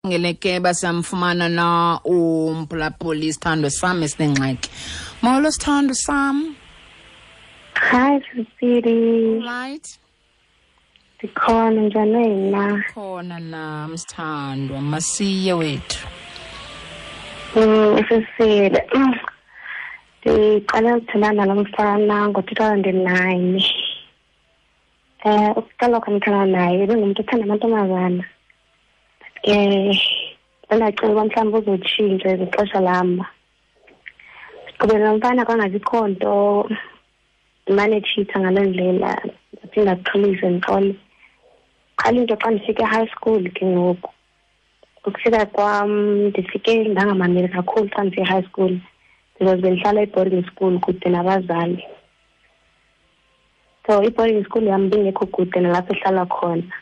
Ngele ke basamfumana na umphulaphuli, isithando sam esinengxaki. Molo, sithando sam. Hi, Sisiri. Right. Ndikhona, njani wena? Khona nam, sithandwa. Masiye wethu. Sisiri. Ndiqale ukuthandana nalo mfana ngo-2009. Ukuqala kwam uthandana naye ebengumntu othanda amantombazana. But ke ndandacinga uba mhlawumbi uzotshintsha ngexesha lam. Siqhubele nomfana kwangabikho nto, ndimane etshitha ngaloo ndlela, ndaphinda ndixolise, ndixole. Qala into xa ndifika e-high school ke ngoku. Ukufika kwam ndifike ndangamameli kakhulu xa ndifika e-high school because bendihlala e-boarding school kude nabazali. So i-boarding school yam bingekho kude nalapho ehlala khona.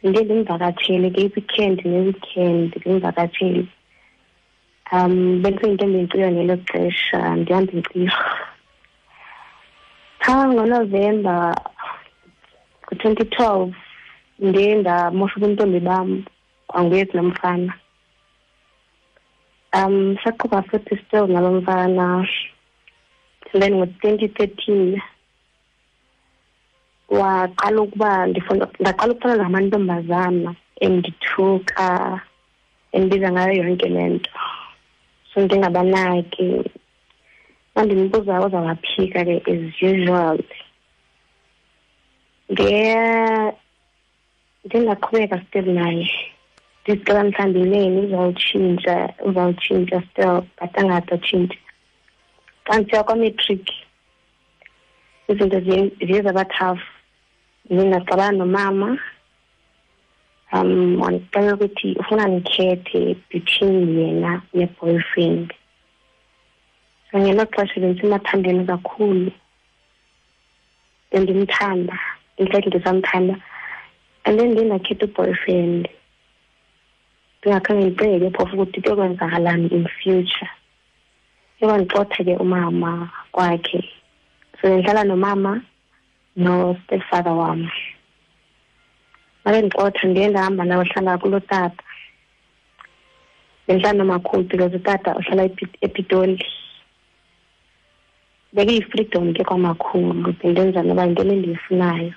Ndiye ndimvakatshele ke i-weekend ne-weekend, ndimvakatshele. Bendiseyintombi enkciyo ngelo xesha, ndihamba inkciyo. Phaa ngoNovemba ngo-2012 ndiye ndamosha ubuntombi bam kwanguye kulaa mfana. Saqhuba futhi still nalo mfana. And then ngo-2013 waqala ukuba ndifuna, ndaqala ukufana namantombazana, endithuka, endibiza ngayo yonke le nto. So ndingabanaki. Xa ndimbuza uzawaphika ke as usual. Ndingaqhubeka still naye. Ndicela mhlawumbi inene uzawutshintsha, uzawutshintsha still, but angade atshintshe. Xa ndisiya kwa-matric izinto ziye zaba tough. Ndiye ndaxabana nomama. Wandixelela ukuthi ufuna ndikhethe between yena ne-boyfriend. So ngelo xesha bendisemathandweni kakhulu, bendimthanda, in fact ndisamthanda. And then ndiye ndakhetha u-boyfriend, ndingakhange ndicinge ke phofu ukuthi kuyokwenzakalani in future. Uyandixotha ke umama kwakhe, so ndihlala nomama no-stepfather wam. Babendixotha, ndiye ndahamba ndayohlala kulo tata. Bendihlala nomakhulu because utata uhlala ePitoli. Bekuyi-freedom ke kwamakhulu, bendenza noba yintoni endiyifunayo.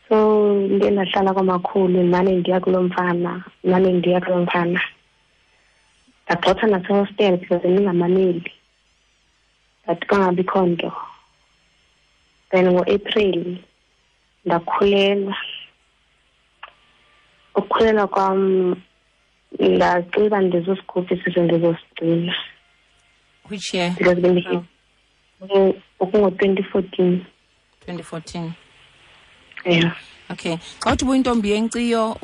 So ndiye ndahlala kwamakhulu, ndimane ndiya kulo mfana, ndimane ndiya kulo mfana. Ndagxothwa nasehostel because bendingamameli, but kwangabikho nto. Then ngoApril ndakhulelwa. Ukukhulelwa kwam ndacinga uba ndizosikhupha isisu, ndizosigcina. Which year? Because ukungo-2014. 2014. Yeah. Okay. Xa uthi ubuyintombi yenkciyo,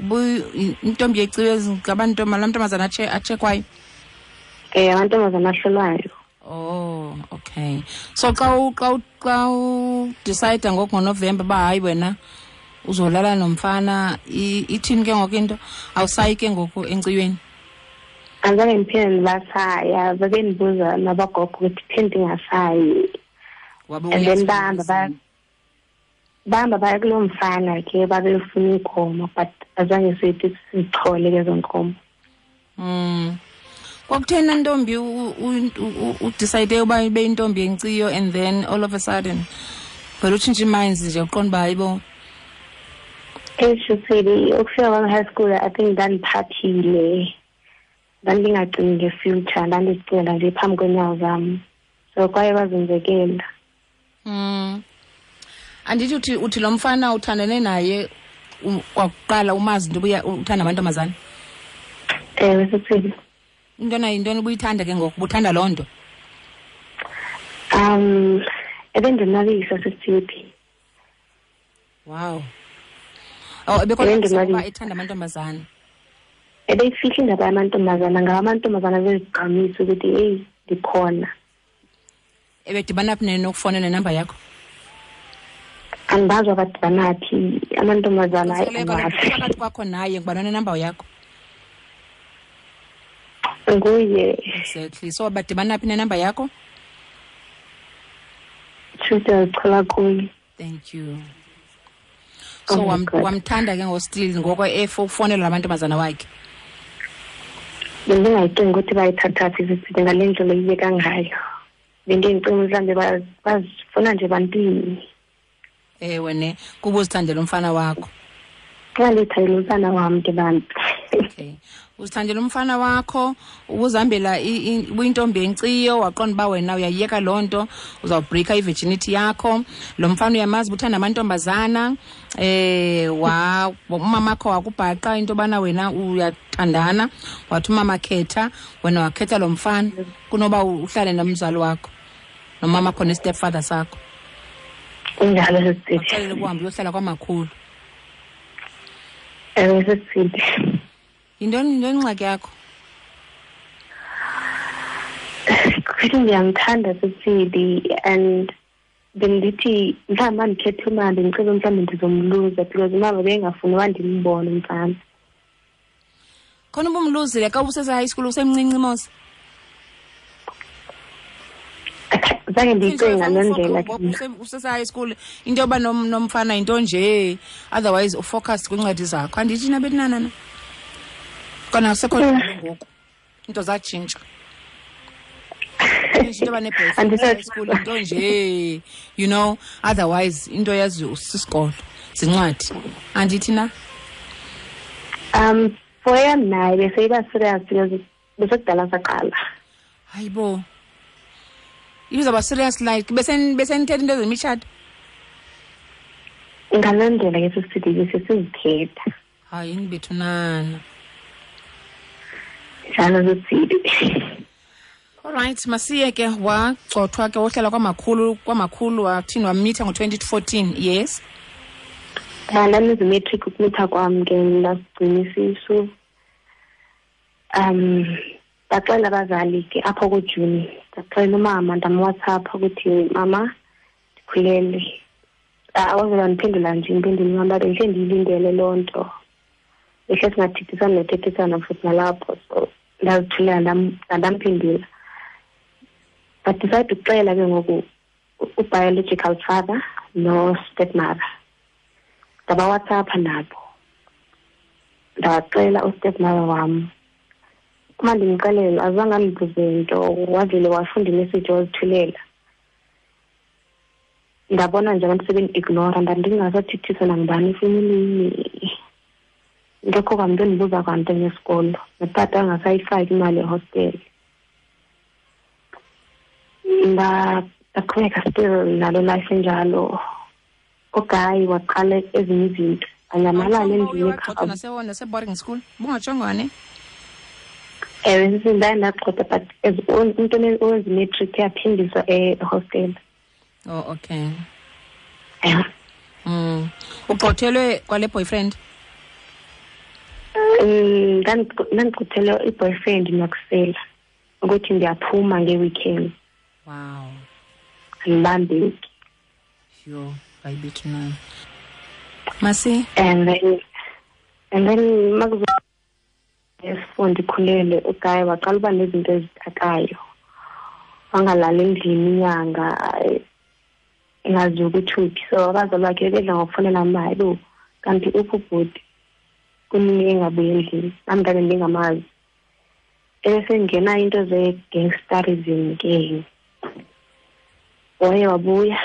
intombi yenkciyo ngabantu, la mantombazana atshekwayo? Amantombazana ahlolwayo. Oh, okay. So xa u decide ngoku ngoNovember uba hayi wena uzolala nomfana, ithini ke ngoku into? Awusayi ke ngoku enkciyweni? Andizange ndiphinde ndibasaya, babendibuza nabagogo ukuthi phinde ndingasayi. Wabe And then uyazi bahamba bahamba baya kuloo mfana ke, babefuna iinkomo, but azange sithi sizithole ke ezo nkomo. Kwakutheni, ntombi, udecide uba ibe intombi yenkciyo and then all of a sudden vele utshintshe iminds nje, uqonda uba hayibo? Eshuthini ukufika kwam high school, I think ndandiphaphile, ndandingacingi nge-future, ndandizicingela nje phambi kweenyawo zam, so kwaye kwazenzekela. Andithi uthi lo mfana uthandane naye kwakuqala umazi into ubuya uthanda amantombazana? Ewe, sithini. Intona, yintoni ubuyithanda ke ngoku, ubuthanda loo nto? Ebendonwabisa, sisithi. Wow, oh, ebekonwabisa Ebendonwabisa. kuba ethanda amantombazana? Ebeyifihla indaba yamantombazana, ngawo amantombazana bezigqamisa ukuthi heyi, ndikhona. Ebedibana phi nokufowunela nenamba yakho? Andibazi abadibana phi amantombazana, hayi, Kaloku andiwazi. Phakathi kwakho naye, ngubani onenamba yakho? Nguye. Exactly, so badibana phi nenamba yakho? Tshuthi azichola kuye. Thank you. So Oh my God. wamthanda ke ngostill ngoko efo ufonela lamantombazana wakhe? Bendingayicingi ukuthi bayithatha phi sisithi ngale ndlela iyeka ngayo. Bendiyicinga mhlawumbi bazifuna nje bantwini. Ewe ne, kuba uzithandela umfana wakho. Xa ndithandela umfana wam ke bantu. Okay. Uzithandela umfana wakho, ubuzihambela ubuyintombi enkciyo, waqonda uba wena uyayiyeka loo nto, uzawubhrikha i-virginity yakho. Lo mfana uyamazi uba uthanda amantombazana, wa umamakho wakubhaqa into yobana wena uyathandana, wathi umama khetha, wena wakhetha lo mfana kunoba uhlale nomzali wakho, nomamakho ne-stepfather sakho. Kunjalo sisithi. Waxelela ukuhamba uyohlala kwamakhulu. Ewe sisithi. Yintoni ingxaki yakho? Kuthi ndiyamthanda sisithi and bendithi mhlawumbi mandikhethe umama, bendicela mhlawumbi ndizomluza because umama bengafuni uba ndimbone umfana. Khona ubumluzile xa ubusese-high school usemncinci mos? Zange ndiyicinge ngaloo ndlela. Usese-high school into yoba nomfana yinto nje, otherwise ufocus kwiincwadi zakho. Andithi nabetinanana? Kona sekho ngoku into zatshintsha. Into yoba ne-boyfriend high school into nje, you know, otherwise into yazi usisikolo, zincwadi. Andithi na? For yam naye beseyiba serious because besekudala saqala. Hayibo. Ibizawuba serious like besenithetha into zemitshato? Ngaloo ndlela ke sisithi besesizithetha. Hayi nibethunana. Njalo sisithi. All right, masiye ke wagxothwa ke wohlala kwamakhulu wathini wamitha ngo-2014, yes? Ndandizimetric ukumitha kwam ke ndasigcina isisu. Ndaxela abazali ke apho kuJuni. Ndaxela umama ndamWhatsApp ukuthi mama ndikhulelwe. Awavele wandiphendula nje impendulo mama bendihle ndiyilindele loo nto. Behle singathethisana nothethisana futhi nalapho, so ndazithulela ndamphendula. But decide ukuxela ke ngoku u-biological father no-stepmother. NdabaWhatsApp nabo. Ndaxela u-stepmother wam. Uma ndimxelela azange andibuze nto, wavele wafunda imessage wazithulela. Ndabona nje abantu sebendi-ignora, ndandingasathethiswa nangubani efemelini. Ngekho kwamntu endibuza kwanto ngesikolo, notata angasayifaki imali ehostele. Ndaqhubeka still nalo life enjalo. Ugayi waqala ezinye izinto, anyamalala endlini ekhaya. Nase-boarding school, bungatshongo ne? Ewe, sisi ndaye ndagxothwa, but as umntu owenza imatric uyaphindiswa ehostele. Oh, okay. Yeah. Ugxothelwe kwale boyfriend? Ndandigxothelwe i-boyfriend nokusela ukuthi ndiyaphuma nge-weekend. Wow. Andibambeki. Yho, ayibethu nani. Masi? And then makuzo esifundo ndikhulelwe ugayi waqala uba nezinto ezitakayo. Wangalali endlini inyanga engazi ukuthi uphi. So abazali bakhe bedla ngokufonela mama, hayibo kanti uphi ubhuti? Kunini engabuyi endlini? Nam ndabe ndingamazi. Ebesengena into ze-gangsterism ke. Waye wabuya.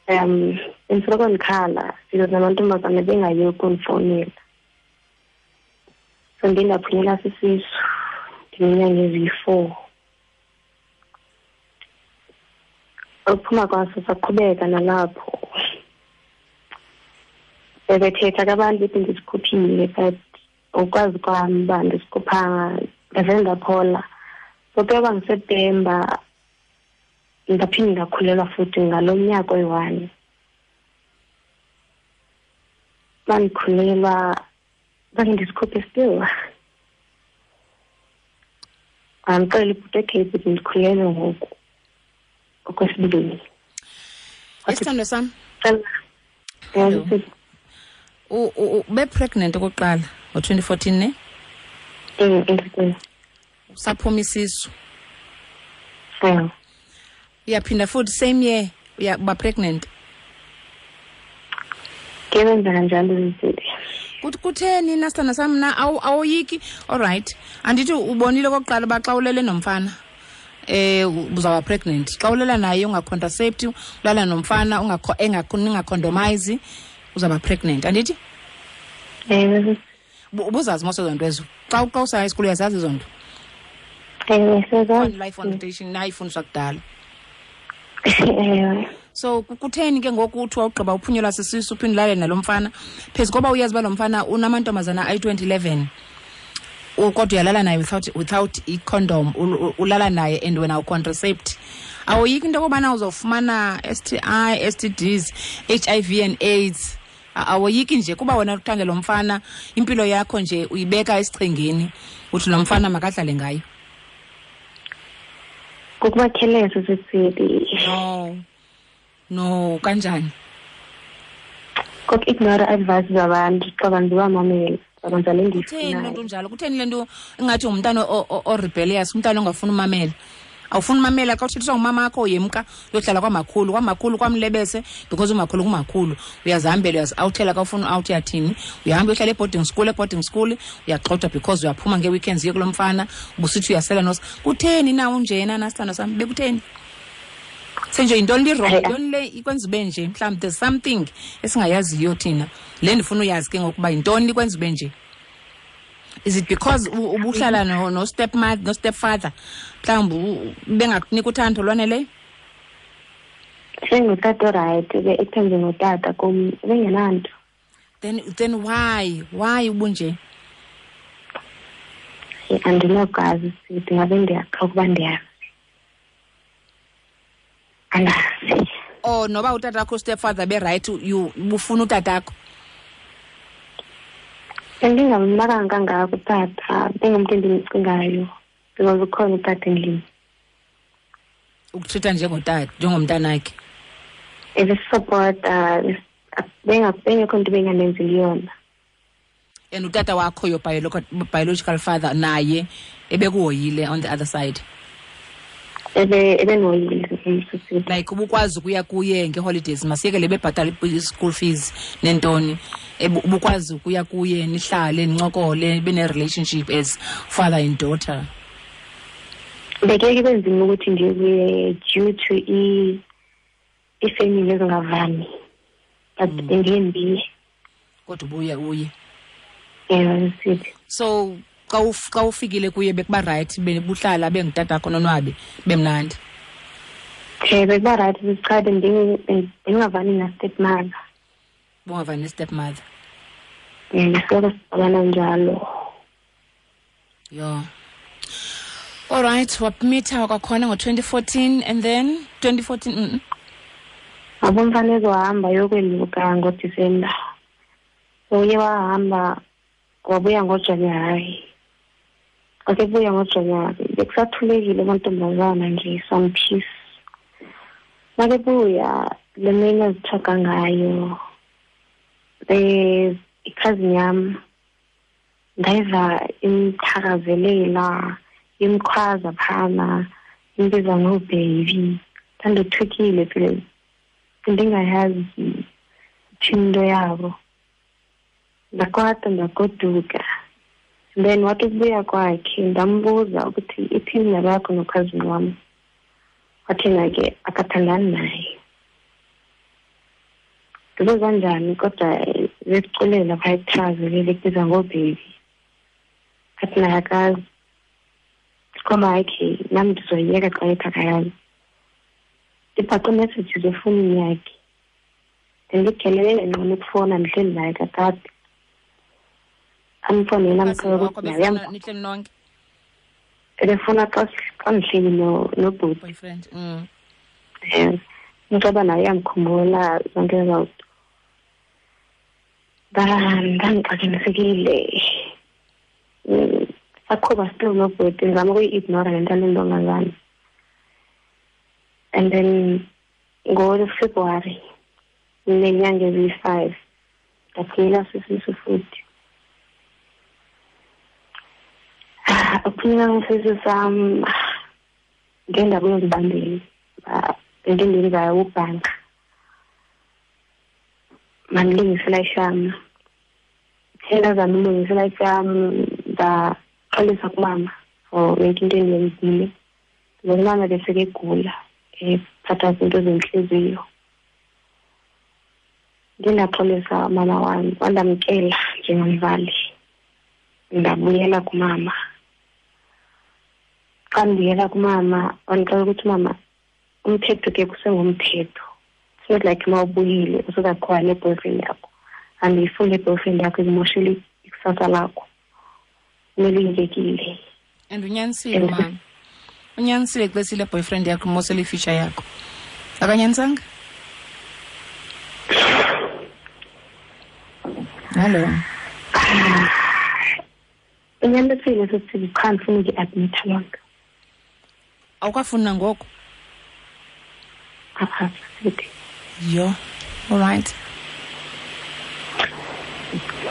Bendisoloko ndikhala because namantombazana bengayi ukundifowunela. So ndiye ndaphunyelwa sisisu ndineenyanga eziyi-4. Ukuphuma kwaso saqhubeka nalapho. Bebethetha ke abantu bethi ndisikhuphile, but ukwazi kwam uba ndisikhuphanga, ndavele ndaphola. So ke yoba nguSeptemba ndaphinde ndakhulelwa futhi ngalo nyaka oyi-1. Bandikhulelwa zange ndisikhuphe still. Andixela ibhuti, okay bhuti ndikhulelwe ngoku okwesibini. Isithando sam. Ube pregnant okokuqala ngo-2014 ne? Usaphuma isisu. Uyaphinda futhi same year uba pregnant. Ke wenza kanjalo izinto. Kutheni na sithanda sam na awoyiki? All right, andithi ubonile okokuqala uba xa ulele nomfana uzawuba pregnant. Xa ulela naye ungacontracept, ulala nomfana ningacondomize, uzawuba pregnant, andithi? Ewe. Ubuzazi mos ezo nto ezo? Xa usaya esikolweni uyazazi ezo nto? Ewe, siyazazi. Life Foundation nayifundiswa kudala. Ewe. So kutheni ke ngoku uthi wawugqiba uphunyelwa sisisu uphinde ulale nalo mfana, phezu koba uyazi uba lo mfana unamantombazana ayi-2011, kodwa uyalala naye without i-condom, ulala naye and wena ucontracept. Awoyiki into yokobana uzofumana STI, STDs, HIV and AIDS? Awoyiki nje kuba wena uthanda lo mfana, impilo yakho nje uyibeka esichengeni, uthi lo mfana makadlale ngayo? Kukuba careless, sisithi. No, kanjani? Koku-ignore advice zabantu, xa bantu bamamela, bakwenza le nto Kutheni ifunayo. le nto njalo? Kutheni le nto ingathi ngumntana o-rebellious, umntana ongafuni umamela? Awufuni umamela xa uthethiswa ngumama wakho, uyemka uyohlala kwamakhulu, kwamakhulu kwamlebese, because umakhulu kumakhulu. Uyazihambela, uyazi-awuthela xa ufuna u-out uyathini. Uyahamba uyohlala e-boarding school, e-boarding school uyagxothwa because uyaphuma ngee-weekends uye kulo mfana, ubusithi uyasela nos. Kutheni na unjena na sithando sam? Bekutheni? Senje yintoni le wrong? Hayi, Yintoni le ikwenza ube nje? Mhlawumbi there's something esingayaziyo thina. Le ndifuna uyazi ke ngokuba yintoni ikwenza ube nje? Is it because ubuhlala no stepmother, no stepfather? Mhlawumbi bengakunika uthando olwaneleyo? Sengutata orayithi, ke ekuthenje ngutata kum, bengenanto. Then why? Why ubunje? Andinokwazi sithi ngabe ndiyaxoka ukuba ndiyazi. Andazi. Oh, noba utata wakho stepfather be right, you ubufuna utatakho? Bendingamnakanga kangako utata, bengumntu endimcingayo because ukhona utata endlini. Ukutreata njengotata, njengomntanakhe. Ebesisupporta, bengekho nto bengamenzeli yona. And utata wakho, your biological father, naye ebekuhoyile on the other side? Ebenhoyile, umsisi. Like ubukwazi ukuya kuye nge-holidays, masiyeke le bebhatala i-school fees nentoni. Ubukwazi ukuya kuye nihlale nincokole, nibe ne-relationship as father and daughter? Bekeke kube nzima ukuthi ndiye kuye due to i-family ezingavani. But bendiye ndiye. Kodwa ubuye uye. Ewe, sithi. So xa ufikile kuye bekuba right, bebuhlala bengutatakho nonwabe, bemnandi? Che, bekuba right, cha, bendingavani na-stepmother. Bungavani ne-stepmother? Ngisoloko sixabana njalo. Yho. All right, wamitha kwakhona ngo-2014 and then 2014, Abo mfana ezohamba yokweluka ngoDisemba. So uye wahamba wabuya ngoJanuwari. Wasebuya ngoJanuwari, bekusathulekile amantombazana nje, some peace. Makebuya le mini azithoka ngayo, i-cousin yam ndayiva imthakazelela, imkhwaza phana, imbiza ngo-baby. Ndandothukile phela, ndingayazi ithini into yabo. Ndakwata ndagoduka. Then wathi ukubuya kwakhe ndambuza ukuthi ithini indaba yakho nokhazini wam. Wathi yena ke akathandani naye. Ndibuza njani kodwa besiculela phaya ekuthakazelele ekubiza ngo-baby. Athi naye akazi. Ngoba hayi ke nam ndizoyiyeka xa ethi akayazi. Ndibhaqe messages efowunini yakhe. Ndindigelelele ngqono ukufowuna ndihleli naye kakade. Amfowunele amxelele Wakho ukuthi naye befuna uyam- nihleli nonke? Ebefuna xa ndihleli nobhuti. Boyfriend. Ngicaba naye uyamkhumbula zonke ezo zinto. Ndandixakanisekile. Saqhuba still nobhuti, ndizama ukuyi-ignora le nto yale ntombazana. And then ngoFebruary nenyanga eziyi-5 ndaphunyelwa sisisu futhi. Ukuphunyelwa kwesisu sam ngendawo yozibambela, into endiyenzayo ubhanka. Mandilungise ishama. Ndazama ulungisa life yam, ndaxolisa kumama for yonke into endiyenzile. Because umama besekegula, ephathwa zinto zentliziyo. Ndiye ndaxolisa umama wam, wandamkela njengomzali. Ndabuyela kumama. Xa ndibuyela kumama, wandixelela ukuthi umama, umthetho ke kusengumthetho. It's not like uma ubuyile usuzaqhuba ne-boyfriend yakho. Andiyifuni le-boyfriend yakho, ikumoshele ikusasa lakho. Kumele uyiyekile. And unyanisile mama. Unyanisile xa esile boyfriend yakho imosele i-future yakho. Akanyanisanga? Hello. Unyanisile sisithi, qha ndifuna ukuyi-admitha loo nto. Awukafuni nangoku? A-a, sisithi. Yho, all right.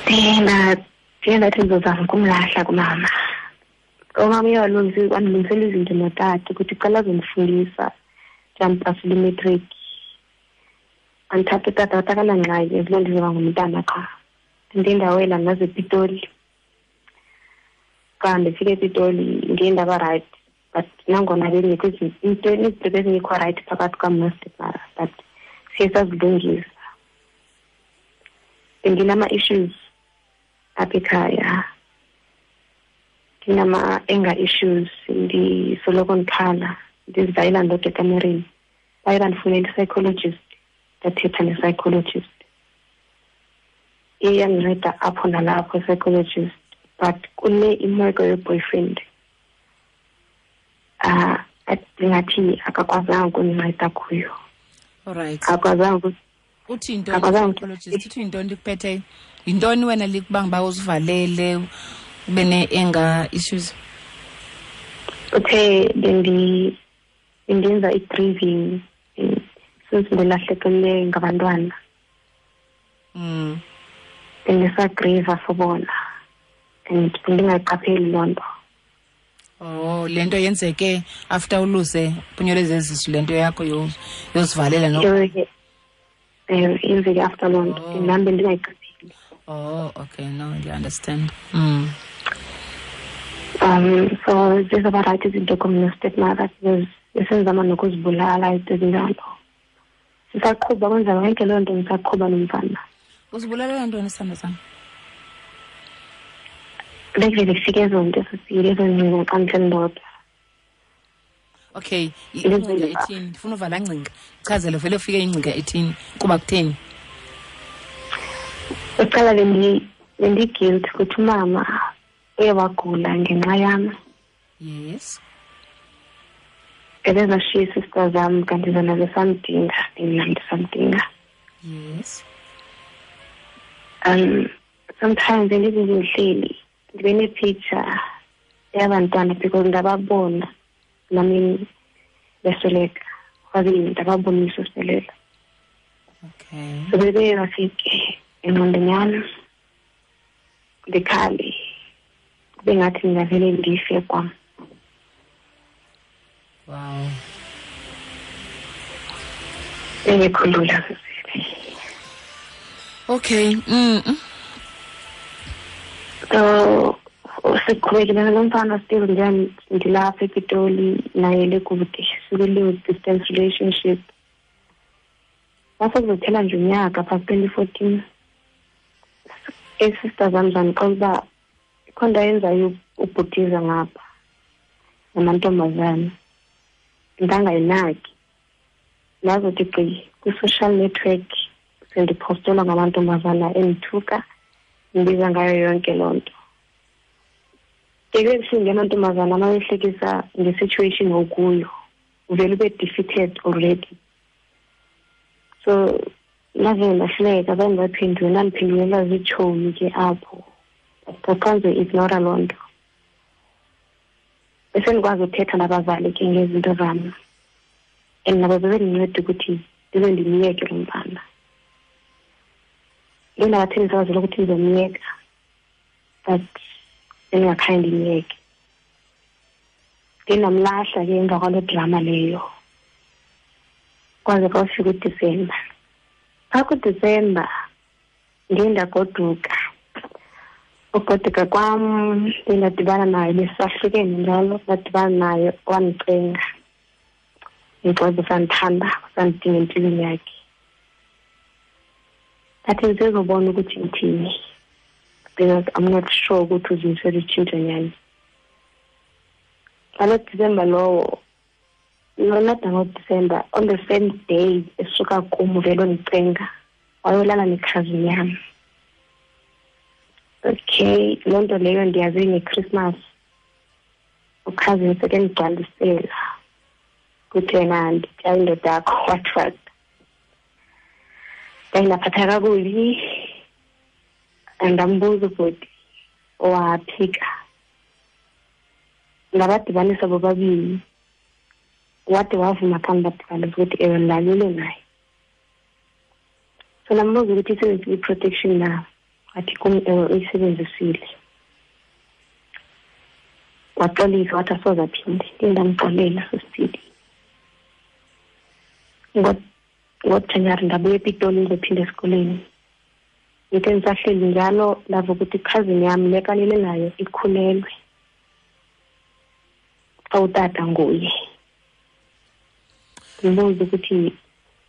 Ndiye ndathi ndizozama ukumlahla kumama. Umama uye wandilungisela izinto notata ukuthi cela azondifundisa, ndiyandipasela imatric. Andithatha utata wathi akanangxaki, as long ndizoba ngumntana qha. Ndiye ndawela ndaze ePitoli. Xa ndifika ePitoli ndiye ndaba right, but nangona bengekho into izinto bezingekho right phakathi kwam nostepmother, but siye sazilungisa. Bendinama-issues apha ekhaya, ndinama-anger issues, ndisoloko ndikhala, ndizivayela ndodwa ekamereni. Baye bandifunela i-psychologist, ndathetha ne-psychologist. Iye yandinceda apho nalapho i-psychologist, but kule imeko ye-boyfriend, ndingathi akakwazanga ukundinceda kuyo. All right. Akakwazanga Uthi yintoni Akakwazanga i-psychologist? Uthi yintoni likuphetheyo? Yintoni wena likubanga uba uzivalele, ube ne-anger issues? Uthe bendenza i-grieving since ndilahlekelwe ngabantwana. Bendisagrieva for bona and bendingayiqapheli loo nto. Oh, le nto yenzeke after uluze phunyelwe zezisu, le nto yakho yozivalela no? Ewe, yenzeke after loo nto. Oh. Nam bendingayiqapheli. Oh, okay, no, I understand. So zizaba right izinto kum no-stepmother because besenzama nokuzibulala izinto ezinjalo. Sisaqhuba kwenza yonke loo nto, ndisaqhuba nomfana. Uzibulalela ntoni, sithando sam? Bekuvele kufike ezo nto sisile, ezo ngcinga xa ndihleli ndodwa. Okay, Ilizwe ingcinga liba. ethini? Ndifuna uva laa ngcinga. Chazele vele ufike ingcinga ethini, kuba kutheni? Uqala bendi-guilt ukuthi umama uye wagula ngenxa yam. Yes. Ebezashiya ii-sister zam kanti zona besamdinga, mna ndisamdinga. Yes. Sometimes bendithi ndihleli ndibe ne-picture yabantwana because ndababona nami besweleka, kwaze ndababonisa usweleka. Okay. So bebe bafike engqondweni yam ndikhale, kube ngathi ndingavele ndife kwam. Wow. Bengekho lula sisile. Okay. So siqhubekile nalo mfana still, ndilapha ePitoli naye lekude, sikule distance relationship. Kwase kuzophela nje unyaka phaa 2014, ii-sister zam zandixelela uba ikho nto ayenzayo ubhutiza ngapha namantombazana, ndangayinaki. Ndazothi gqi kwi-social network sendiphostelwa ngamantombazana endithuka, ndibiza ngayo yonke loo nto. Ke kubuhlungu amantombazana uma behlekisa nge-situation okuyo, uvele ube defeated already. So ndavele ndahleka, zange ndaphendula, ndandiphendulela ziitshomi ke apho. But xa ndizoyi-ignora loo nto, besendikwazi uthetha nabazali ke ngezinto zam, and nabo bebendinceda ukuthi ndize ndimyeke lo mfana. Ndiye ndabathembisa abazali ukuthi ndizomyeka, but bendingakhange ndimyeke. Ndiye ndamlahla ke emva kwaloo drama leyo, kwaze kwafika uDisemba. Phaa kuDisemba ndiye ndagoduka. Ugoduka kwam ndadibana naye, besahlukene njalo, ndadibana naye wandicenga ngixoza usandithanda, usandidinga empilweni yakhe. Ndathi ndisezobona ukuthi ngithini because I'm not sure ukuthi uzimisele utshintsho nyani. Ngalo December lowo, no, not ngoDecember, on the same day esuka kum uvele undicenga wayolala nekhazini yam. Okay, loo nto leyo ndiyazi ngeChristmas ukhazini sekendigcwalisela kuthi yena nditya indoda yakho, what what. Ndaye ndaphatha kakubi, ndambuza ubhuti owaphika, ndabadibanisa bobabini, wade wavuma xa ndibadibanisa ukuthi ewe ndilalile naye. So ndambuza ukuthi isebenzisile i-protection na, wathi kum ewe uyisebenzisile. Waxolisa wathi asoze aphinde, ndiye ndamxolela sisithili. NgoJanuwari ndabuya ePitoli ndizophinda esikolweni. Ngithe ndisahleli njalo ndava ukuthi ikhazini yam le kalele nayo ikhulelwe, xa utata nguye. Ndimbuze ukuthi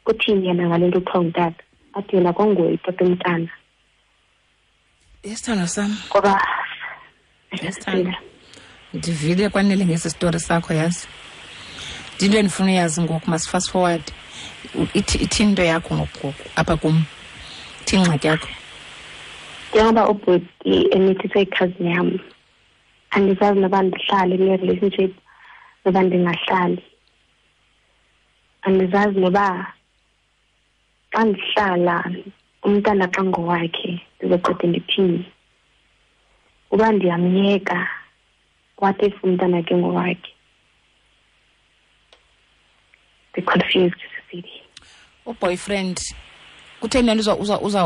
uthini yena ngale nto kuthiwa ngutata, athi yena kwanguye utata umntana. Isithando sam. Ngoba Isithando. Ndivile kwanele ngesi story sakho, yazi. Into endifuna uyazi ngoku, must fast forward. Ithini into yakho ngoku apha kum? Ithini ingxaki yakho? Njengoba ubhuti emithise ikhazini yam, andizazi noba ndihlale kule relationship noba ndingahlali. Andizazi noba xa ndihlala umntana xa ngowakhe ndizoqede ndithini. Uba ndiyamyeka, what if umntana ke ngowakhe? Be confused, Cecilia. Uboyfriend kutheni le nto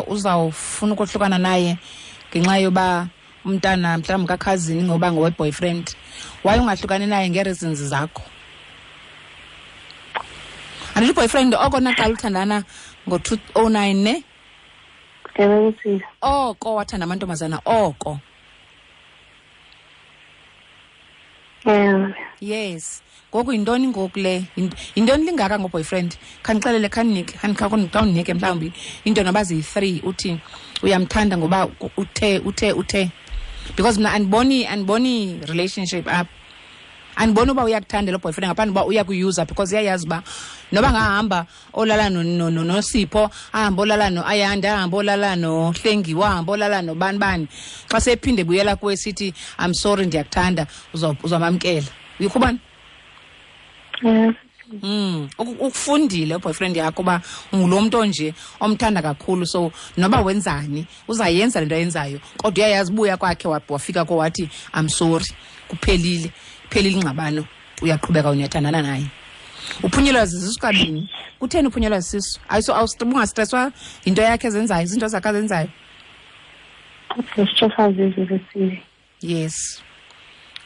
uzawufuna ukohlukana naye ngenxa yoba umntana mhlawumbi kakhazini ngoba ngowe-boyfriend? Why ungahlukani naye ngee-reasons zakho? Andithi uboyfriend oko naqala uthandana ngo-2009 ne? Ewe, Cecilia. Oko wathanda amantombazana oko. Ewe. Yes. Ngoku yintoni ngoku le? Yintoni lingaka ngoboyfriend? Khandixelele, khandinike, khawundinike mhlawumbi into noba ziyi-3 uthi uyamthanda ngoba uthe, uthe, uthe. Because mna andiboni relationship apha. Andiboni uba uyakuthanda lo boyfriend ngaphandle uba uyakuyuza, because uyayazi uba noba angahamba olala noSipho, ahambe olala noAyanda, ahambe olala noHlengiwe, ahambe olala nobani bani, xa sephinde ebuyela kuwe sithi I'm sorry ndiyakuthanda, uzamamkela. Uyikhubani? Yes. Ukufundile boyfriend yakho uba ungulo mntu onje omthanda kakhulu, so noba wenzani uzayenza le nto ayenzayo, kodwa uyayazi ubuya kwakhe wafika ko wathi I'm sorry, kuphelile, kuphelile ingxabano, uyaqhubeka uyathandana naye. Uphunyelwa zizisu kabini. Kutheni uphunyelwa zisisu? Ayiso ungastresswa yinto yakhe ezenzayo, izinto zakhe azenzayo. Stresswa zizisu zesizwe. Yes.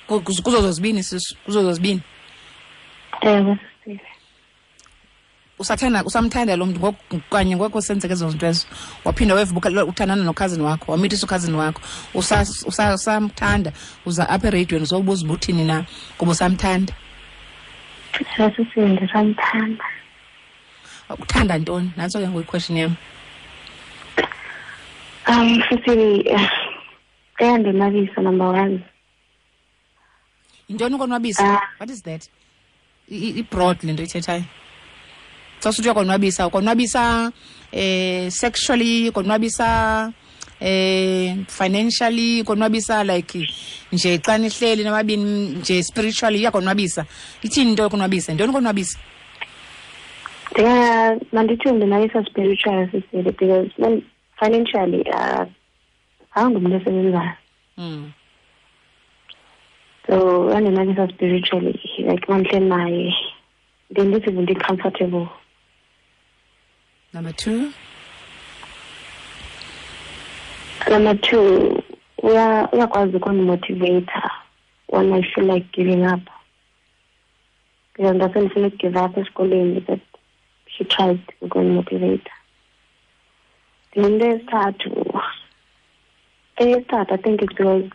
Kuzo zozibini sisu, kuzo zozibini. Ewe, sisi. Usathanda, usamthanda lo mntu ngoku kanye ngoku senzeke ezo zinto ezo. Waphinda wevuka uthandana nokhazini wakho, wamithisa ukhazini wakho. Usamthanda, uza apha eradiweni uzobuza uba uthini na kuba usamthanda. Sisi, ndisamthanda. Uthanda ntoni? Nantso ke ngoku iquestion yam. Sisi, eyandonwabisa number 1. Yintoni ukonwabisa? What is that? I-broad le nto ithethayo. Xa usithi uyakonwabisa, ukonwabisa sexually, ukonwabisa financially, ukonwabisa like nje xa nihleli nababini nje spiritually iyakonwabisa. Ithini into yokonwabisa? Yintoni ukonwabisa? Mandithi ndonwabisa spiritually, sisi, because when financially angumntu osebenzayo. So uyandonwabisa spiritually, like mandihleli naye then this is really comfortable. Number 2. Number 2, uyakwazi ukundimotivate when I feel like giving up. Because ndasendifuna ukugive up esikolweni, but she tried ukundimotivate. Into yesithathu, Eyesithathu, I think it's because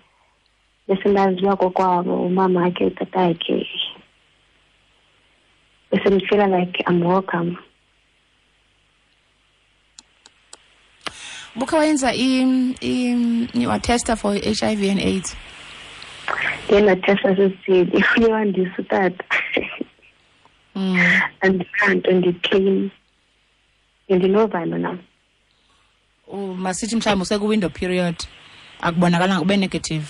besendaziwa kokwabo, umama wakhe, utata wakhe. Bese ndifeela like I'm welcome. Bukhe wayenza watesta for HIV and AIDS? Ndiye ndatesta sesithini, uye wandisa utata. Andinanto, ndi-clean. Ndinovalo nam. Masithi mhlawumbi usekwi-window period, akubonakalanga ube negative.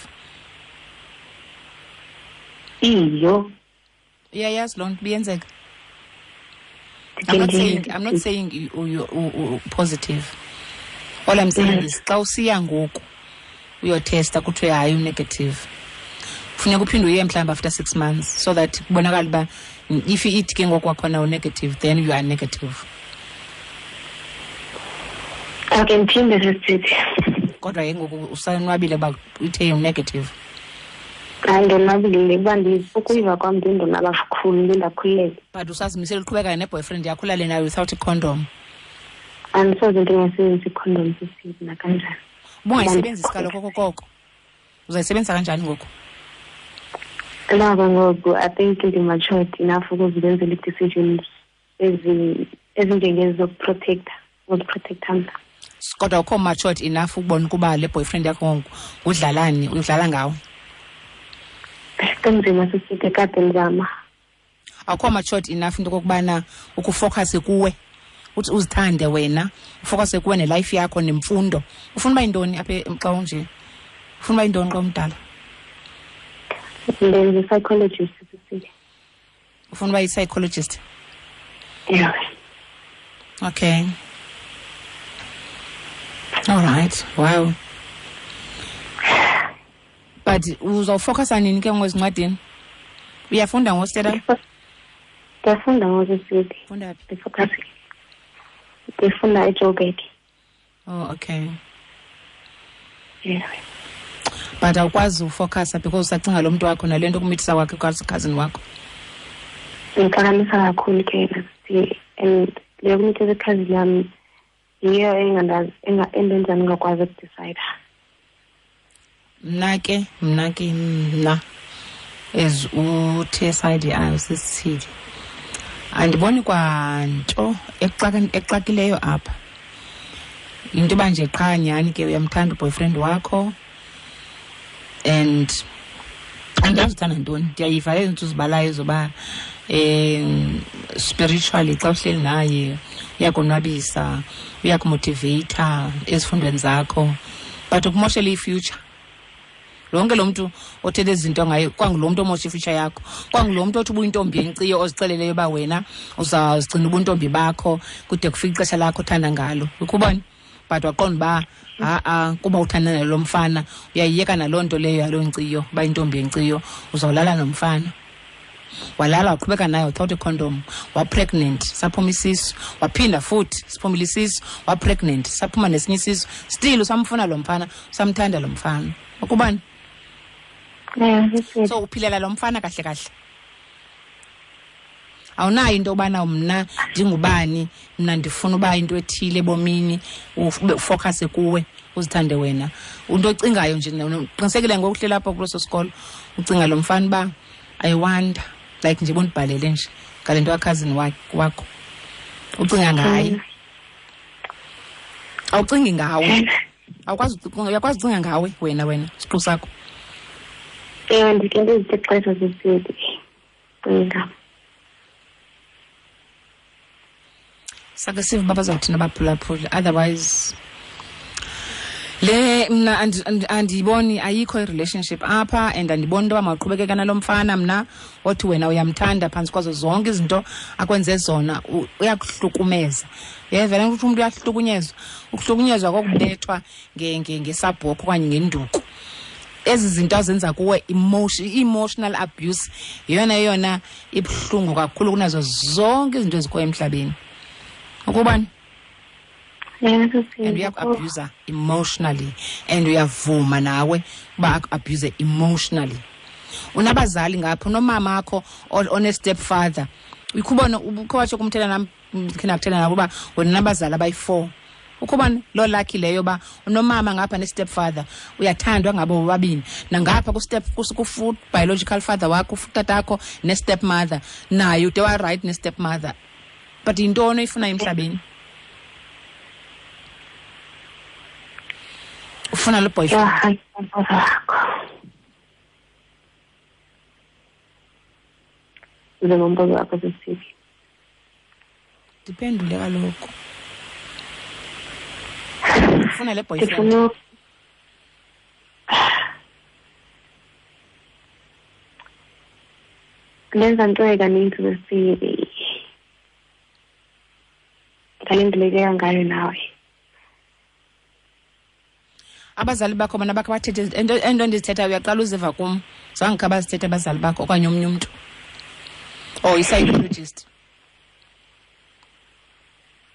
Iyo. Uyayazi loo nto ibiyenzeka. I'm not saying you positive. All I'm saying is xa usiya ngoku uyotesta kuthiwe hayi u-negative. Funeka uphinde uye mhlawumbi after 6 months so that kubonakale uba if ithi ke ngoku kwakhona u-negative, then you are negative. Okay, ndiphinde sisithi. Kodwa ke ngoku usanwabile uba uthe u-negative. Hayi, ndonwabile kuba ukuyiva kwam ndindonwaba kakhulu, ndindakhululeka. But usazimisele uqhubeka ne-boyfriend yakho ulale nayo without i-condom? Andisoze ndingasebenzisi i-condom sisithi nakanjani. Ubungayisebenzisi kaloku okokoko. Uzayisebenzisa kanjani ngoku? Nako ngoku I think ndi-matured enough ukuzenzela ii-decisions ezinjengezi zokuprotecta, uziprotecta mna. Kodwa ukho matured enough ukubona ukuba le boyfriend yakho ngoku udlalani, udlala ngawe? Kunzima sisithi, kade ndizama. Awukho matured enough into okokubana ukufocus kuwe, uthi uzithande wena, ufocus kuwe nelife yakho nemfundo. Ufuna uba yintoni apha xa unje? Ufuna uba yintoni xa umdala? Ndenza i-psychologist sisithi. Ufuna uba yi-psychologist? Yeah. Okay. All right. Wow. But uzawufocusa nini ke ngoku ezincwadini? Uyafunda ngoku, Stella? Ndiyafunda ngoku sisithi. Ufunda phi? Ndifocus. Ndifunda eJoburg. Oh, okay. Yeah. But awukwazi ufocusa because usacinga lo mntu wakho nale nto kumithisa kwakhe cousin wakho. Ndixakanisa kakhulu ke yena sisi, and le yokumithisa cousin yam yiyo endenza ndingakwazi ukudicida. Mna as u-T S I D I usisithili, andiboni kwanto exakileyo apha. Yinto yoba nje qha nyhani ke uyamthanda uboyfriend wakho and andazi uthanda ntoni. Ndiyayiva ezi zinto uzibalayo zoba spiritually xa uhleli naye uyakonwabisa, uyakumotiveyitha ezifundweni zakho, but ukumoshela i-future. Lonke lo mntu othethe izinto ngaye kwangulo mntu omosha i-future yakho, kwangulo mntu othi ubuyintombi yenkciyo ozixeleleyo uba wena uzawuzigcina ubuntombi bakho kude kufike ixesha lakho othanda ngalo. Ukubona? But waqonda uba ha-a kuba uthanda nalo mfana uyayiyeka naloo nto leyo yaloo nkciyo uba intombi yenkciyo, uzawulala nomfana. Walala waqhubeka naye without i-condom, wa-pregnant, saphuma isisu, waphinda futhi siphumile isisu, wa-pregnant, saphuma nesinye isisu, still usamfuna lo mfana, usamthanda lo mfana. Ukubani? So uphilela lo mfana kahle kahle. Awunayo into yobana mna ndingubani, mna ndifuna uba into ethile ebomini, ube ufocuse kuwe, uzithande wena. Into ocingayo nje, uqinisekile ngoku uhleli apha kuleso sikolo, ucinga lo mfana uba I wonder, like nje bondibhalele nje ngale nto ka-cousin wakho. Ucinga ngaye. Awucingi ngawe. Awukwazi ucinga, uyakwazi ucinga ngawe wena siqu sakho. Ewe, ndike ndizithe xesha sisithi. Cinga. Sake sive uba bazawuthini abaphulaphuli, otherwise le mna andiyiboni, ayikho i-relationship apha, and andiboni into yoba mawuqhubekeka nalo mfana mna othi wena uyamthanda phantsi kwazo zonke izinto akwenze zona, uyakuhlukumeza. Uyeva le nto ukuthi umntu uyahlukunyezwa? Ukuhlukunyezwa kokubethwa ngesabhokho okanye ngenduku. Ezi zinto azenza kuwe, emotional abuse, yeyona yona ibuhlungu kakhulu kunazo zonke izinto ezikhoyo emhlabeni. Ukubani? Yeah, sisi. And uyaku-abuser emotionally, and uyavuma nawe uba aku-abuse emotionally. Unabazali ngapha, unomama wakho one-stepfather. Ukhubona, ukhe watsho kumthela nam, ndikhe ndakuthetha nabo uba wena unabazali abayi-4. Ukuba loo lucky leyo uba unomama ngapha ne-step father, uyathandwa ngabo bobabini, nangapha ku-step biological father wakho, utatakho, ne-step mother naye ude warayithi ne-step mother. But yintoni oyifunayo emhlabeni? Ufuna lo boyfriend? Njengombuzo wakho sisithi. Ndiphendule kaloku. Ufuna le boyfriend? Ndenza nto kaninzi sesili. Ngale ndilekeka ngayo nawe. Abazali bakho bona bakhe bathethe ento endizithethayo, uyaqala uziva kum. Zange khe bazithethe abazali bakho okanye omnye umntu or i-psychologist?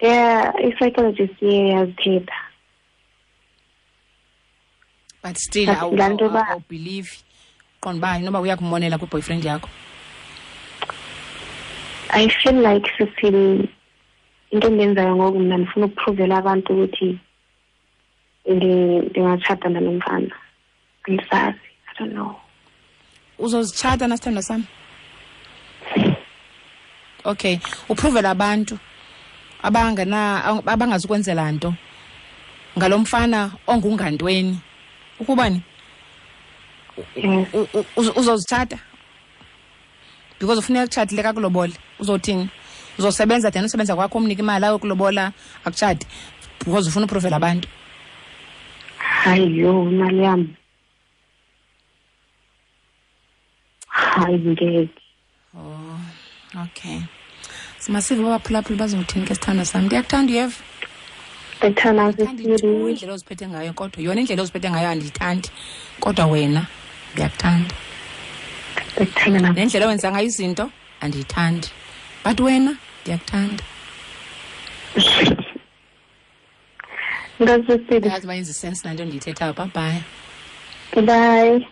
Yeah, i-psychologist iye yazithetha. But still awubhilivi, qonda uba inoba uyakumonela kwi-boyfriend yakho. I feel like sisile into endiyenzayo ngoku, mna ndifuna ukupruvela abantu ukuthi ndingatshata nalo mfana. Andisazi, I don't know. Uzozitshata nasithandwa sam? Okay, upruvela abantu abangazukwenzela nto ngalo mfana ongungantweni ukubani? Uzozitshata because ufuneka kutshatile kakulobole. Uzothini? Uzosebenza then usebenza kwakho umnike imali ayokulobola akutshate because ufuna upruvela abantu? Hayi yho, imali yam. Hayi ngeke. Oh, okay. Masive baphulaphula bazothini ke sithandwa sam. Ndiyakuthanda, uyeva? Ndikuthanda. Indlela oziphethe ngayo, kodwa yona indlela oziphethe ngayo andiyithandi, kodwa wena ndiyakuthanda. Ndikuthanda. Nendlela owenza ngayo izinto andiyithandi, but wena ndiyakuthanda. Nkosi. Yazi uba yenza isense nanto ndiyithethayo. Bye bye. Bye.